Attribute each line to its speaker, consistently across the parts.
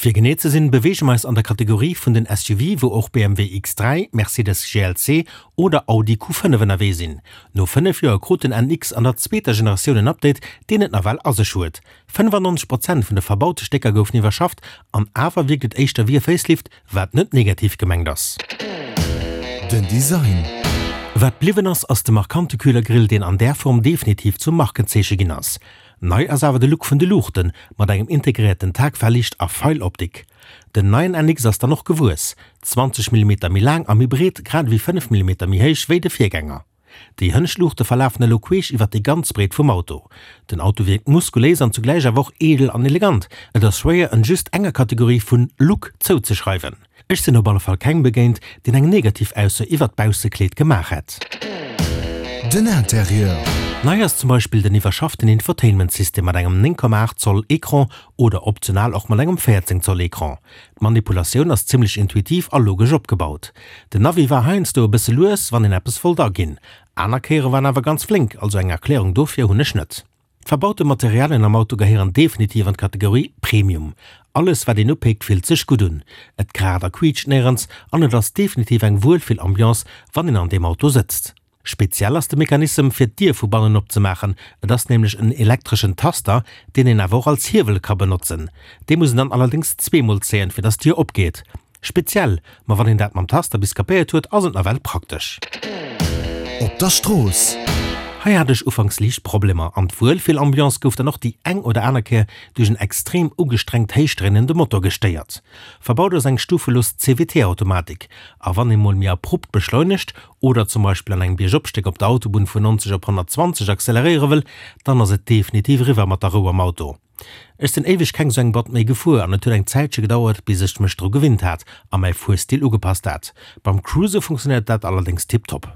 Speaker 1: Fir genee ze sinn, beweege mer eis an der Kategorie vun den SUV, wou och BMW X3, Mercedes GLC oder Audi Q5 ënnerwee sinn. No 5 Joer krut den NX an der zweeter Generatioun en Update, deen et nawell a sech huet. 95 Prozent vun de verbaute Stécker goufen iwwerschafft an awer wierkt et éischter wéi e Facelift, wat net negativ gemengt ass.
Speaker 2: Den Design.
Speaker 1: Wat bliwwen ass, ass de markante Kühlergrill, deen an där Form definitiv zum Markenzeeche ginn ass. Nei ass awer de Look vun de Luuchten, mat engem integréierten Tagfahrlicht a Pfeiloptik. Den neien NX ass dann och gewuess, 20 Millimeter méi laang a méi breet, grad ewéi 5 Millimeter méi héich wéi de Virgänger. Déi hënnescht Luuchte verlafen elo queesch iwwer déi ganz Breet vum Auto. Den Auto wierkt muskuléis an zugläich awer och edel an elegant. Et ass schwéier en just enger Kategorie vun Look zouzeschreiwen. Ech sinn op alle Fall kengem begéint, deen eng negativ Ausso iwwert d'Baussekleed gemaach hätt.
Speaker 2: Den Interieur.
Speaker 1: Nei ass zum Beispill den iwwerschafften Infotainment-System mat engem 9,8 Zoll Ecran oder optional och mat engem 14 Zoll Ecran. D'Manipulatioun ass zimmlech intuitiv a logesch opgebaut. Den Navi war heiansdo e bësse lues, wann een eppes wollt aginn. Aner Kéiere war en awer ganz flénk, also eng Erklärung dofir hunn ech net. D'verbaute Materialien am Auto gehéieren definitiv an d'Kategorie Premium. Alles wat een upéckt fillt sech gutt un, et kraacht a quiitscht néierens an et ass definitiv eng Wuelfillambiance wann een an deem Auto sëtzt. Speziell ass de Mechanissem fir d'Dier vu bannen opzemaachen, et ass nämlech en elektreschen Taster, deen een awer och als Hiewel ka benotzen. Dee muss een dann allerdéngs zweemol zéien fir dass d'Dier opgeet. Speziell, ma wann een dat mam Taster bis kapéiert huet, ass et nawell praktesch.
Speaker 2: Op der Strooss.
Speaker 1: Hei hat ech ufanks liicht Problemer an d'Wuelfillambiance gouf dann och déi eng oder aner Kéier duerch en extrem ugestrengt héichdréinende Motor gestéiert. Verbaut ass eng stufelos CVT-Automatik a wann ee mol méi abrupt beschleunegt oder zum Beispill an engem Biergopstéck op der Autobunn vun 90 op 120 acceleréiere wëll, dann ass et definitiv eriwwer mat der Rou am Auto. Ech sinn éiweg keng sou eng Boîte méi gefuer an et huet eng Zäitche gedauert bis ech mech dru gewinnt hat a mäi Fuerstil ugepasst hat. Beim Cruise funktionéiert dat allerdéngs tiptop.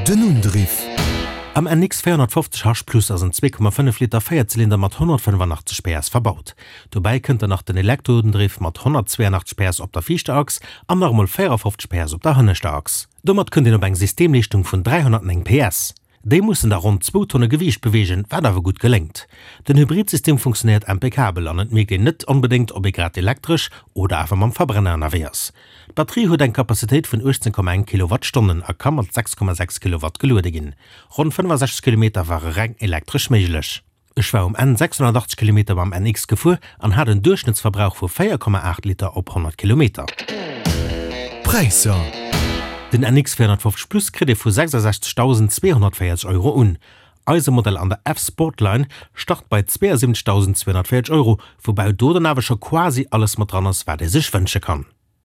Speaker 2: Den Undriff.
Speaker 1: Am NX 450 H Plus ass en 2,5 Liter Véierzylinder mat 185 PS verbaut. Dobäi kënnt dann nach den Elektroundriff mat 182 PS op der viischter Achs an nach emol 54 PS op der hënneschter Achs. Domat kënnt een op eng Systemleeschtung vun 309 PS. Déi mussen da ronn zwou Tonne Gewiicht beweegen, wat awer gutt geléngt. Den Hybridsystem funktionéiert impeccabel an et mierkt een net onbedéngt, ob ee grad elektresch oder awer mam Verbrenner ënnerwee ass. D'Batterie huet eng Kapazitéit vun 18,1 Kilowattstonnen a ka mat 6,6 Kilowatt geluede ginn. Ronn 65 Kilometer ware reng elektresch méiglech. Ech war um Enn 680 Kilometer mam NX gefuer an hat en Duerchschnëttsverbrauch vu 4,8 Liter op 100 Kilometer.
Speaker 2: Präisser.
Speaker 1: Den NX 450 Plus kritt ee vu 66.240 Euro un. Eise Modell an der F-Sportline start bei 72.240 Euro, woubäi do dann awer scho quasi alles mat dran ass, wat ee sech wënsche kann.